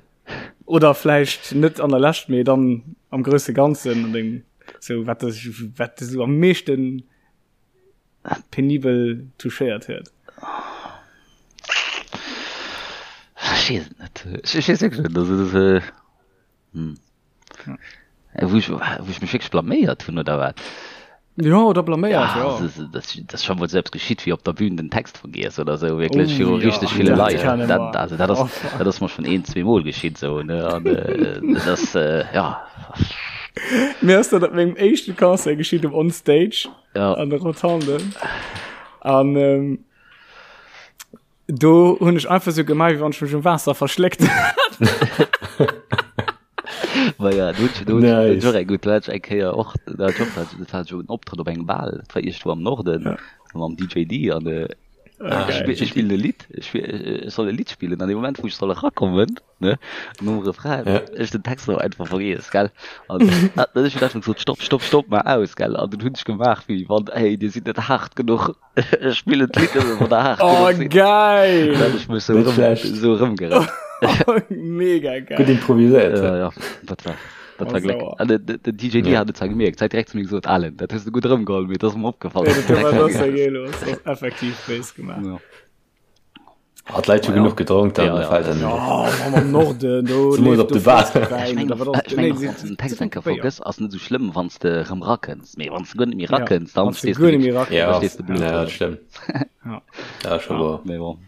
Oder vläicht net an der Lescht, mee dann am grousse Ganzen an dengem so wat dech wat dech so am meeschten penibel touchéiert huet. Ech weess et net. Ech ech weess wierklech net. Also dat äh, hm. Äh, Wou ech, wou ech mech wierklech blaméiert hunn oder wat? Ja, oder blaméiert, ja. Ja, das, das, das ist schon mal selbst geschitt, wie op der Bühn den Text vergiess oder so, wirklich Oh, viru ja, richtig viele dat Leit. kenne Dat, mer. also dat ass, Oh, fuck. dat ass mer schon een, zweemol geschitt so, ne? An äh, das, äh, ja. Mir ass dat op mengem éischte Concert geschitt um On Stage Ja. an der Rotonde. An ähm, do hunn ech einfach sou gemaach, wéi wann ech mech um Waasser verschléckt hätt. Ma ja, do hunn ech, do hunn ech, Nice. do hunn ech och eng gutt, do hat ech eng Kéier och, do hat ech och, dat war jo en Optrëtt op engem Bal, dat war iergendwou am Norden, Ja. mam DJ D an äh, Ah, ech geil. spill, ech spillen e Lidd, ech spill, ech soll e Lidd spillen an dem Moment, wou ech soll erakommen, ne, nom Refrain, Ja. ech den Text awer einfach vergiess, gell, an dann hunn ech einfach gesot, stopp, stopp, stopp, mol aus, gell, an dunn hunn ech gemaach, wéi wann, hey, dir sidd net haart genuch. Ech spillen d'Lidd nëmme wann der haart Oh, genuch sidd. geil! Dann hat ech mech sou Net erëm, schlecht. sou erëmgerett. Mega Gutt geil. improviséiert. Ja, ja, dat war, dat Oh, war Gléck. sauer. An den, den den DJ D Ja. hat et zwar gemierkt, hat direkt zu mir gesot, Alan, dat hues du gutt erëmgeholl, mee et ass mer opgefall, Ja, dass du dat den war Text das ja vergiess geil los. Das ass effektiv béis gemaach. hues. Ja. Ah, d'Leit hu Ma ja. genuch gedronk, dann Ja, ja, fällt das- dann Ja, Mann, am Norden, do Zemools leeft op do de Bar. flësseg Ech Wäin mengen oder och, wat ass ech mengen nee, och, si wann s du den Text si eng Kéier Béier. vergëss, ass net esou schlëmm, wann s de erëm rakënns. Mee wann s de guer net méi Ja, rakënns, dann wann s de stees du guer net méi wierklech, rakënns. da Ja, stees de blöd ja, do. dat stëmmt. Ja. Dat ass scho woer. Mee bon.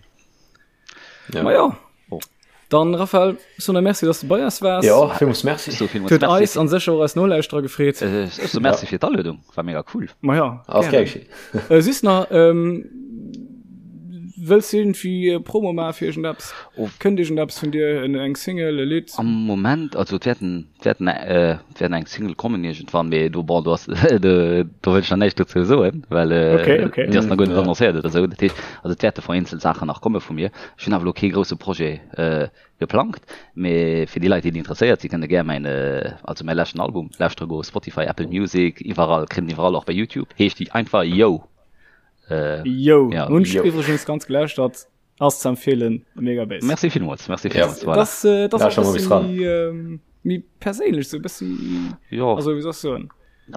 Ja. Ma ja. Oh. Dann, Raphael, so na merci, dass du bei eis waars. Ja, villmools merci. So, villmools Huet merci. eis an sécher och eis Nolauschterer gefreet. Äh, ech so merci fir d'Aluedung, war mega cool. Ma ja, Ass gerne. gär geschéit. Äh, süss nach, ähm, wëlls du irgendwie äh, Promo maache fir iergendeppes? Oh. Kënnt iergendeppes vun dir, en, eng Single, e Lidd? Am Moment, also et wäerten, et wäerten, äh, et wäerten eng Single kommen iergendwann, mee do, bon, do ass, do, do wëll ech nach näischt dozou soen, well äh, Okay, okay. déi ass nach guer net Ja. annoncéiert oder esou. Dat heescht, also et wäerte vereenzelt Saachen nach komme vu mir. Ech hunn awer elo kee grousse Projet äh, geplangt, mee fir déi Leit, déi interesséiert sinn, kënne gär mäin, äh, also mäi leschten Album lauschtere goen, Spotify, Apple Music, iwwerall, kritt en iwwerall, och bei YouTube, heescht déi einfach Yo. Äh, Yo, ja, hunn ech Yo. iwwregens ganz gelauschtert. Ass ze empfehlen, mega Bass. Merci villmools, merci Ja. villmools, voilà. Das, äh, das Ja, ass schon e mal bëssi bis dran. méi, ähm, méi perséinlech, sou e bëssi, Jo. also wéi soll ech soen?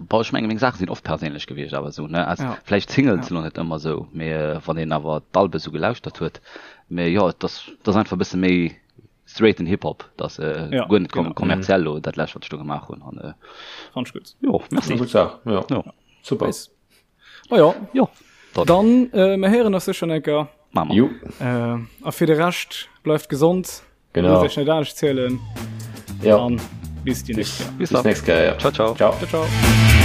Boah, ech menge meng Saache sinn oft perséinlech gewiescht, awer esou, ne? Also, Ja. vläicht d'Singles Ja. sinn och net ëmmer esou, mee äh, wann een awer d'Albe sou gelauschtert huet, mee jo, et ass, et ass einfach e bësse méi straighten Hip-Hop, et ass äh, Ja, guer net kom genau. kommerziell lo, dat lescht, wat ech do gemaach hunn an äh, Fand ech gutt. jo, merci. Gutt Saach, ja. Jo. Super. Nice. Ma jo, Jo, dann dann, äh, mir héieren eis sécher enker. maache mer. Jo, Äh, a fir de Rescht, bleift gesond. genau. Loosst iech net anescht zielen. Ja. An bis déi nächst Kéier. Bis Bis dann. nächst Kéier, ja. Ciao, ciao. Ciao. Ciao, ciao.